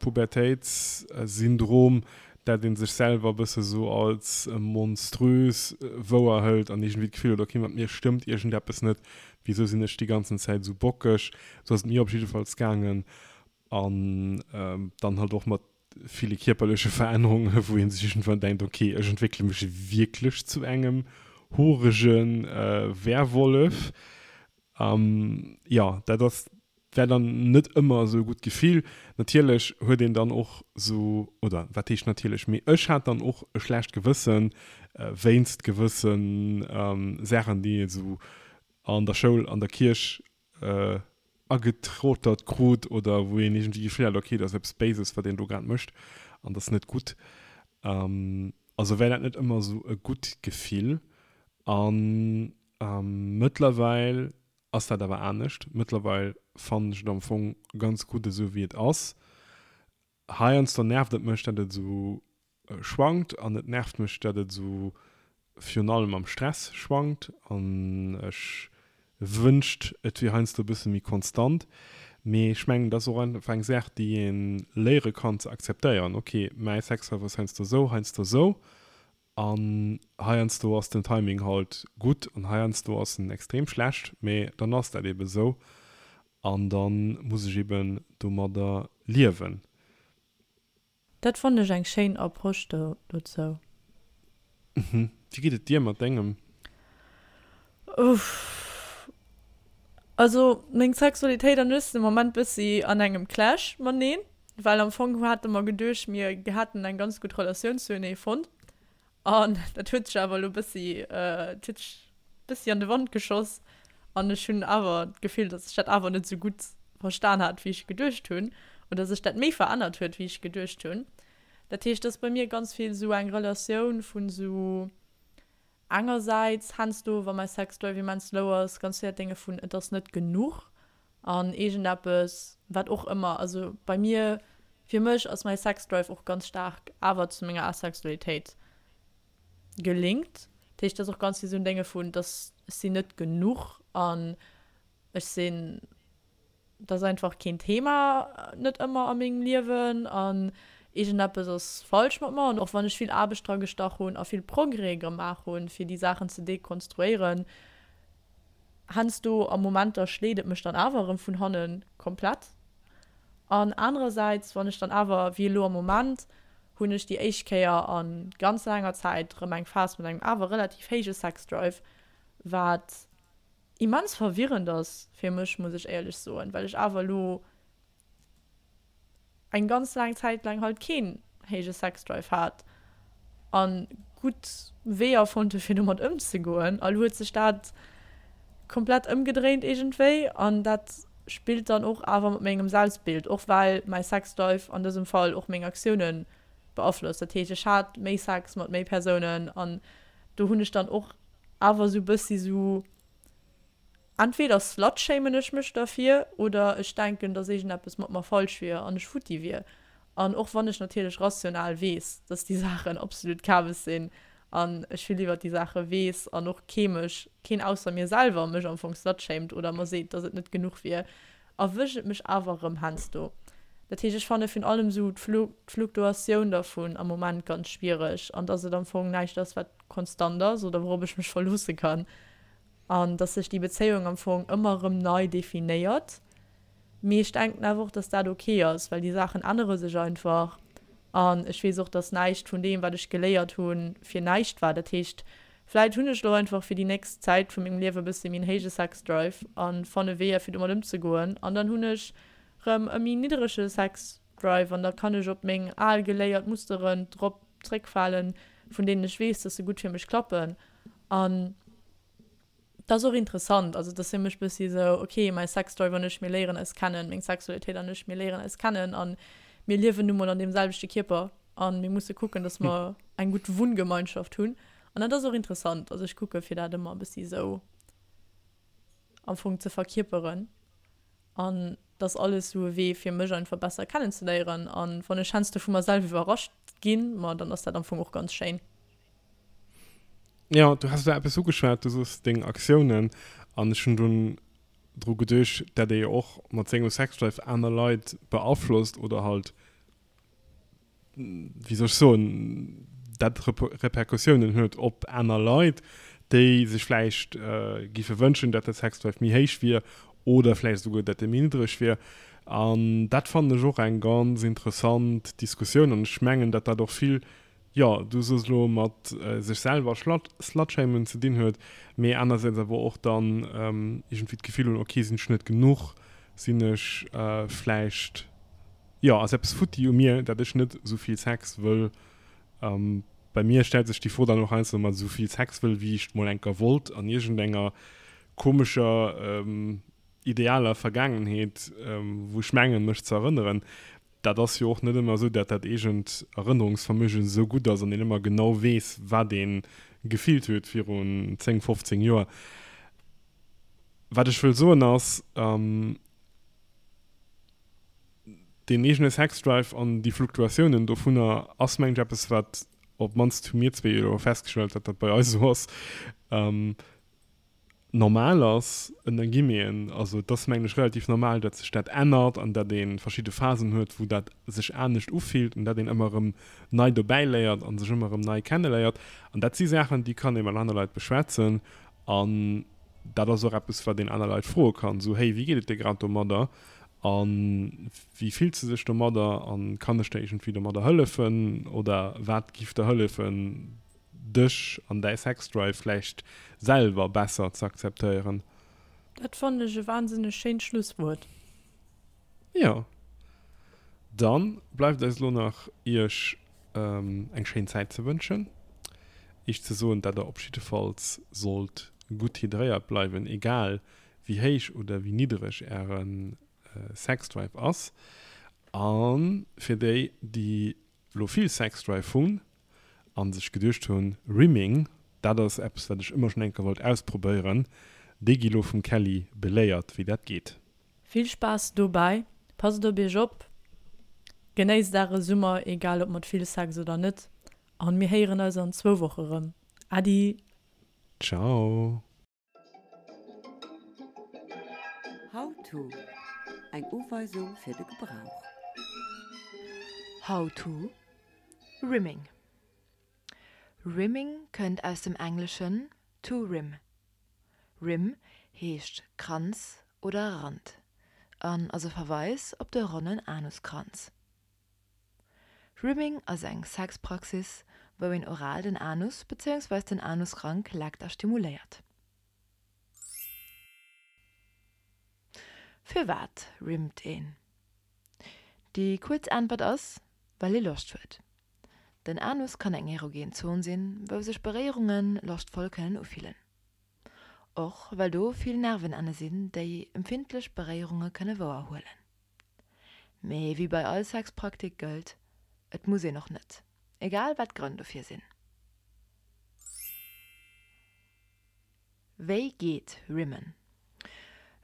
Pubertéitssyndrom, dat ee sech selwer e bësse sou als monströs wouerhëlt an iergendwéi d'Gefill huet, okay, mat mir stëmmt iergendeppes net, wisou sinn ech déi ganzen Zäit esou bockeg? Sou ass et mir op jiddefalls gaangen. An dann halt och mat ville kierperleche Verännerungen, wou ee sech iergendwann denkt, okay, ech entwéckele mech wierklech zu engem horege Werwollef. Jo, dat ass, war dann net ëmmer esou e gutt Gefill. Natierlech huet een dann och esou, oder wat heescht natierlech, mee ech hat dann och e schlecht Gewësse wéinst gewësse Saachen, déi ee sou an der Schoul, an der Kierch agetrotert krut oder wou een iergendwéi d'Gefill hat, okay, dat ass eppes Béises, wat een do grad mécht an dat ass net gutt. Also war dat net ëmmer esou e gutt Gefill. An Mëttlerweil ass dat awer anescht. Mëttlerweil fannen ech et am Fong ganz gutt esou wéi et ass. Heiansdo nervt et mech, dat et esou. schwankt an et nervt mech, dat et esou virun allem am Stress schwankt an ech wënscht et wier heiansdo e bësse méi konstant. Mee ech mengen, dat ass och einfach eng Saach, déi ee léiere kann ze akzeptéieren, ok, mäi Sexlife ass heiansdo esou, heiansdo esou an heiansdo ass den Timing halt gutt an heiansdo ass en extrem schlecht, mee dann ass dat ebe esou an da muss ech eben domadder liewen. Dat fannen ech eng schéin Approche dozou. Mhm. Wéi geet et dir mat dengem? Uff. Also meng Sexualitéit an ech sinn am Moment bëssi an engem Clash mateneen, well am Fong hate mer geduecht mir hätten eng ganz gutt Relatioun zuenee fonnt An dat huet sech awer elo bëssi, et huet sech bëssi an de Wand geschoss an ech hunn awer d'Gefill, datt ech dat awer net esou gutt verstan hat, wéi ech geduecht hunn, oder sech dat méi verännert huet, wéi ech geduecht hunn. Dat heescht, et ass bei mir ganz vill esou eng Relatioun vun esou engersäits heiansdo, wa mäi Sexdrive immens low ass, ganz vill dat Dénge vun et ass net genuch An iergendeppes, wat och ëmmer, also bei mir, fir mech ass mäi Sexdrive och ganz staark awer zu menger Asexualitéit gelinkt. Dat heescht, et ass och ganz vill esou en Dénge vun, dass ech sinn net genuch an ech sinn, dat ass einfach keen Thema net ëmmer a mengem Liewen an iergendeppes ass falsch mat mer. An och wann ech vill Aarbecht dra gestach hunn a vill Progrès gemaach hunn, fir déi Saachen ze dekonstruéieren, Heiansdo a Momenter schléit et mech dann awer erëm vun hannen komplett. An anerersäits, wann ech dann awer, wéi elo am Moment, hunn ech déi éischt Kéier a ganz laanger Zäit erëm eng Phas mat engem awer relativ héije Sexdrive, wat immens verwirrend ass fir mech, muss ech éierlech soen, well ech awer elo eng ganz laang Zäit laang halt keen héije Sexdrive hat an gutt Weeër fonnt hu fir domat ëmzegoen. A lo huet sech dat komplett ëmgedréint iergendwéi an dat spillt dann och awer mat mengem Selbstbild, och well mäi Sexdrive an dësem Fall och meng Aktioune beaflosst. Dat heescht ech hat méi Sex mat méi Persounen an do hunn ech dann och awer esou bëssi sou Entweder slutshamen ech mech derfir oder ech denken, dass iergendeppes mat mer falsch wier an ech futti wier. An och wann ech natierlech rational weess, dass déi Saachen absolut Kabes sinn an ech vill iwwert déi Saache weess an och kee mech, keen ausser mir selwer mech am Fong slutshamed oder mer seet, dass et net genuch wier, erwëscht et mech awer erëm heiansdo. Dat heescht, ech fanne virun allem esou d'Fluktuatioun dervun am Moment ganz schwiereg an dass et am Fong näischt ass, wat konstant ass oder wourop ech mech verloosse kann. An dass sech déi Bezéiung am Fong ëmmer erëm nei definéiert. Mee ech denken awer och, dass dat ok ass, well déi Saachen ännere sech einfach. An ech weess och, dass näischt vun deem, wat ech geléiert hunn, fir näischt war. Dat heescht, vläit hunn ech elo einfach fir déi nächst Zäit vu mengem Liewe e bësse méi en héije Sexdrive a fanne Weeër, fir domat ëmzegoen. An dann hunn ech rëm e méi nidderege Sexdrive an da kann ech op meng al geléiert Musteren drop zréckfalen, vun deenen ech weess, dass se gutt fir mech klappen. An dat ass och interessant, also dat ass fir mech bëssi esou, ok, mäi Sexdrive an ech, mir léieren eis kennen, meng Sexualitéit an ech, mir léieren eis kennen a mir liewen nu mol an deem selwechte Kierper a mir musse kucken, datt mer eng gutt Wunngemeinschaft hunn. An dat ass och interessant, also ech kucke fir dat ëmmer e bëssi esou am Fong ze verkierperen an dat ass alles esou e Wee fir mech einfach besser kennenzeléieren an wann ech heiansdo vu mer selwer iwwerrascht ginn, ma dann ass dat am Fong och ganz schéin. Ja, du has da eppes ugeschwat, du soos deng Aktiounen an ech hunn dunn dru geduecht, dat ee jo och mat sengem Sexdrive aner Leit beaflosst oder halt, wéi soll ech soen, dat Repercussiounen huet op aner Leit, déi sech vläicht giffe wënschen, dat de Sexdrive méi héich wier oder vläicht esouguer, dat e méi niddreg wier. An dat fannen ech och eng ganz interessant Diskussioun an ech mengen, dat dat och vill jo, du soos elo, mat sech selwer slutshamen ze dinn huet, mee anersäits awer och dann iergendwéi d'Gefill hunn, ok, sinn ech net genuch, sinn ech vläicht, jo, ass eppes futti u mir, dat ech net esou vill Sex wëll. Bei mir stellt sech déi Fro dann och heiansdo, mat esou vill Sex wëll, wéi ech mol enker wollt an iergendenger komescher idealer Vergaangenheet, wou ech mengen, mech ze erënneren. Dat ass jo och net ëmmer esou, dat dat eegent Erënnerungsvermögen esou gutt ass an een ëmmer genau weess, wat ee gefillt huet virun 10, 15 Joer. Wat ech wëll soen ass, Deen eegene Sexdrive an déi Fluktuatiounen dovunner ass, mengen ech, eppes, wat, op d'mannst hu mir zwee jo festgestallt, datt dat bei eis esou ass, normal ass, ënner Guillemeten. Also et ass, mengen ech, relativ normal, datt sech dat ännert an datt ee verschidde Phasen huet, wou dat sech anescht ufillt an datt een ëmmer erëm nei dobäi léiert a sech ëmmer erëm nei kenneléiert. An dat si Saachen, déi kann ee mat aner Leit beschwätzen an dat ass och eppes, wat een aner Leit froe kann, esou, Hey, wéi geet et dir grad domadder a wéi fills de dech domadder a kann ech der iergendwéi domadder hëllefen oder wat giff der hëllefen, dech an däi Sexdrive vläicht selwer besser ze akzeptéieren. Dat fannen ech e wahnsinneg schéint Schlusswuert. Jo, dann bleift eis elo nach iech eng schéin Zäit ze wënschen, iech ze soen dat der op jiddefalls sollt gutt hydréiert bleiwen, egal wéi héich oder wéi niddereg äre Sexdrive ass. A fir déi déi lo vill Sexdrive hunn an sech geduecht hunn, Rimming, dat ass eppes wat ech ëmmer schonn eng Kéier wollt ausprobéieren, déi gi lo vum Kelly beléiert wéi dat geet. Vill Spaass dobäi, passt op iech op, genéisst äre Summer, egal ob mat vill Sex oder net, an mir héieren eis an zwou Woche rëm. Äddi! Ciao! How to, Eng Uweisung fir de Gebrauch. How to, Rimming Rimming kënnt aus dem Engleschen to rim. Rim heescht Kranz oder Rand an ass e Verweis op de ronnen Anuskranz. Rimming ass eng Sexpraxis, wou een oral den Anus bezéiungsweis den Anusrank leckt a stimuléiert. Firwat rimmt een? Déi kuerz Äntwert ass, well ee Loscht huet. Den Anus kann eng erogen Zon sinn, wou sech Beréierunge loschtvoll kënnen ufillen. Och well do vill Nervenenne sinn, déi empfindlech Beréierunge kënne wouerhuelen. Mee wéi bei all Sexpraktik gëllt, et muss een och net, egal wat d'Grënn dofir sinn. Wéi geet Rimmen?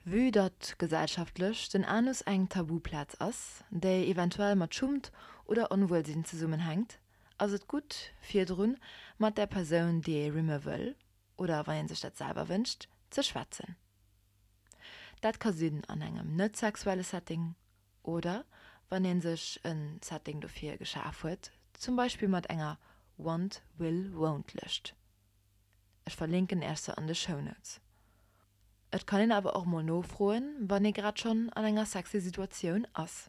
Vue datt gesellschaftlech den Anus eng Tabuplaz ass, déi eventuell mat Schummt oder Onwuelsinn zesummenhänkt, ass et gutt virdrun mat der Persoun déi ee rimme wëll, oder wann ee sech dat selwer wënscht, ze schwätzen. Dat ka sinn an engem net sexuelle Setting oder wann ee sech e Setting dofir geschaf huet, zum Beispill mat enger Want, Will, Won't Lëscht. Ech verlinken Äech se an de Shownotes. Et kann een awer och mol nofroen, wann ee grad schonn an enger sexy Situatioun ass.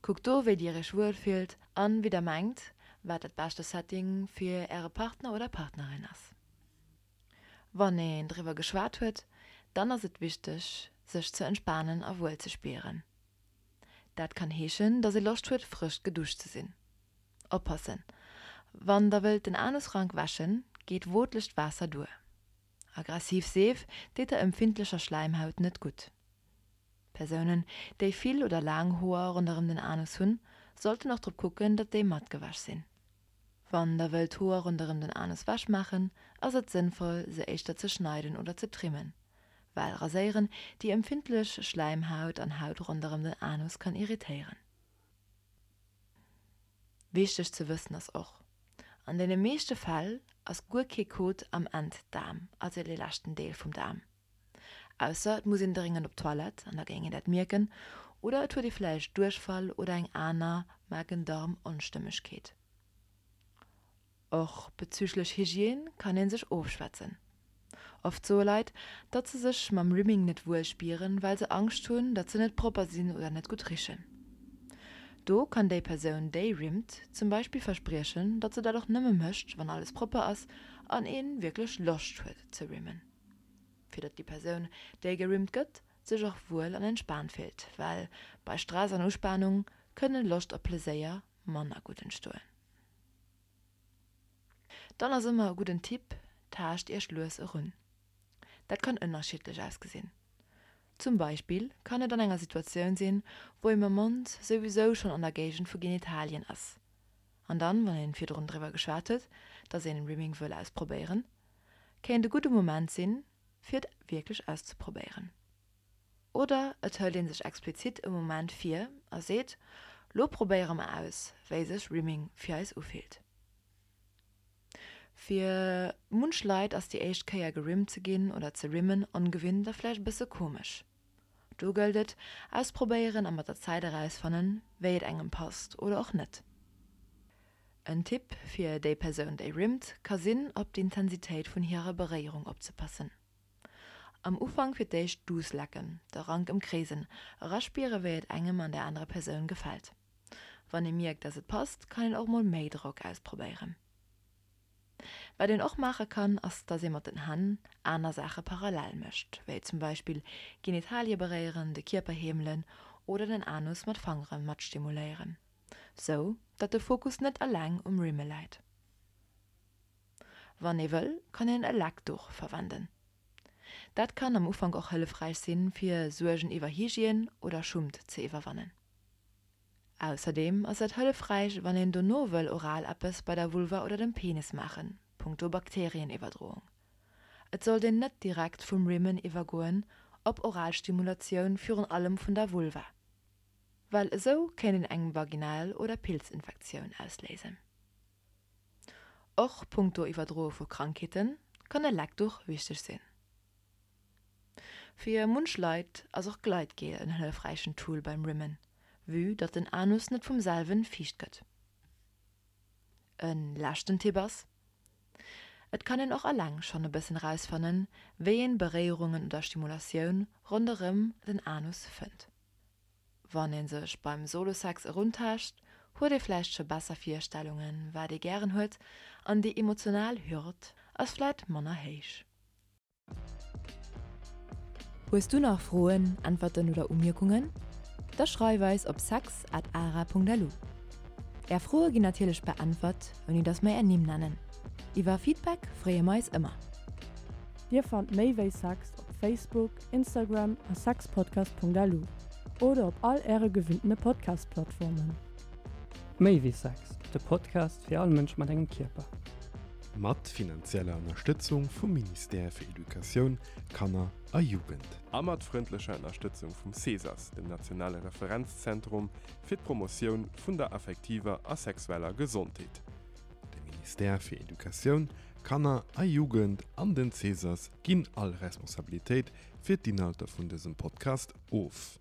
Kuckt do wéi dir iech wuel fillt an wéi der mengt, wat dat beschte Setting fir äre Partner oder Partnerin ass. Wann een driwwer geschwat huet, dann ass et wichteg, sech ze entspanen a wuel ze spieren. Dat kann heeschen, dass ee Loscht huet, frësch geduscht ze sinn. Oppassen, Wann der wëllt den Anusrank wäschen, geet wootlecht Waasser duer. Aggressiv Seef deet der empfindlecher Schläimhaut net gutt. Persounen, déi vill oder laang Hoer ronderëm den Anus hunn, sollten och drop kucken, datt déi matgewäsch sinn. Wann der wëllt d'Hoer ronderëm den Anus wech maachen, ass et sënnvoll se éischter ze schneiden oder ze trimmen, well raséieren déi empfindlech Schläimhaut an Haut ronderëm den Anus kann irritéieren. Wichteg ze wëssen ass och, An deene meeschte Fäll ass guer kee Kot am Enddaarm, also dee leschten Deel vum Daarm. Ausser et muss een dréngend op d'Toilette, an da géing een dat mierken, oder et huet ee vläicht Duerchfall oder eng aner Magen-Darm-Onstëmmegkeet. Och bezüglech Hygiène kann ee sech ofschwätzen. Oft soe Leit, datt se sech mam Rimming net wuel spieren, well se Angscht hunn, datt se net propper sinn oder net gutt richen. Do kann déi Persoun, déi rimmt, zum Beispill verspriechen, datt se dat och nëmme mécht, wann alles propper ass an ee wierklech Loscht huet ze rimmen. Fir datt déi Persoun, déi gerimmt gëtt, sech och wuel an entspaant fillt, well bei Stress an Uspanung kënne Loscht a Pleséier manner gutt entstoen. Dann ass ëmmer e gudden Tipp, Taascht iech lues erun. Dat kann ënnerschiddlech ausgesinn. Zum Beispill kann et an enger Situatioun sinn, wou ee mam Mond souwisou schonn an der Géigend vu Genitalien ass. An dann, wann een virdrun driwwer geschwat huet, dass een Rimming wëll ausprobéieren, kéint e gudde Moment sinn, fir et wierklech auszeprobéieren. Oder et hëlt ee sech explizit e Moment vir a seet, Lo probéiere mer aus, wéi sech Rimming fir eis ufillt. Fir munch Leit ass déi éischt Kéier gerimmt ze ginn oder ze rimmen ongewinnt a vläicht e bësse komesch. Do gëllt et, ausprobéieren a mat der Zäit erausfannen, wéi et engem passt oder och net. En Tipp fir déi Persoun, déi rimmt, ka sinn, op d'Intensitéit vun hirer Beréierung opzepassen. Am Ufank fir d'éischt duuss lecken, de Rank ëmkreesen, eraspiere wéi et engem an der anerer Persoun gefält. Wann ee mierkt, dass et passt, kann een och mol méi Drock ausprobéieren. Wat een och maache kann, ass dass ee mat den Hänn aner Saache parallel mécht, wéi zum Beispill Genitalie beréieren, de Kierper heemelen oder den Anus mat Fangere mat stimuléieren, sou datt de Fokus net eleng um Rimme läit. Wann ee wëll, kann een e Leckduch verwenden. Dat kann am Ufank och hëllefräich sinn, fir Suergen iwwer Hygiène oder Schummt ze iwwerwannen. Ausserdeem ass et hëllefräich, wann een dono wëll oral eppes bei der Vulva oder dem Penis maachen, punkto Bakterieniwwerdroung. Et sollt een net direkt vum Rimmen iwwergoen op oral Stimulatioun, virun allem vun der Vulva, well esou kéint een eng Vaginal oder Pilzinfektioun ausléisen. Och punkto Iwwerdroe vu Krankheete kann e Leckduch wichteg sinn. Fir munch Leit ass och Gleitgel en hëllefräichen Tool beim Rimmen, vue datt den Anus net vum selwen fiicht gëtt. E leschten Tipp ass, Et kann een och alleng schonn e bëssen rausfannen, wéi een Beréierungen oder Stimulatioun ronderëm den Anus fënnt. Wann ee sech beim Solo-Sex eruntaascht, huet ee vläicht scho besser Virstellungen, wat ee gären huet, an déi emotional Hürd ass vläit manner héich. Hues du nach Froen, Äntwerten oder Umierkungen? Da schreif eis op sex at ara.lu. Är Froe ginn natierlech beäntwert, ouni dass mer är Nimm nennen. Iwwer Feedback freeë mer eis ëmmer. Dir fannt méi wéi Sex op Facebook, Instagram a sexpodcast.lu oder op all äre gewinntene Podcast-Plattformen. Méi wéi Sex, de Podcast fir all Mënsch mat engem Kierper. Mat finanzieller Ënnerstëtzung vum Ministère fir Educatioun, Kanner a Jugend. A mat frëndlecher Ënnerstëtzung vum CESAS, dem nationale Referenzzentrum fir d'Promotioun vun der affektiver a sexueller Gesondheet. De Ministère fir Educatioun, Kanner a Jugend an den CESAS ginn all Responsabilitéit fir d'Inhalter vun dësem Podcast of.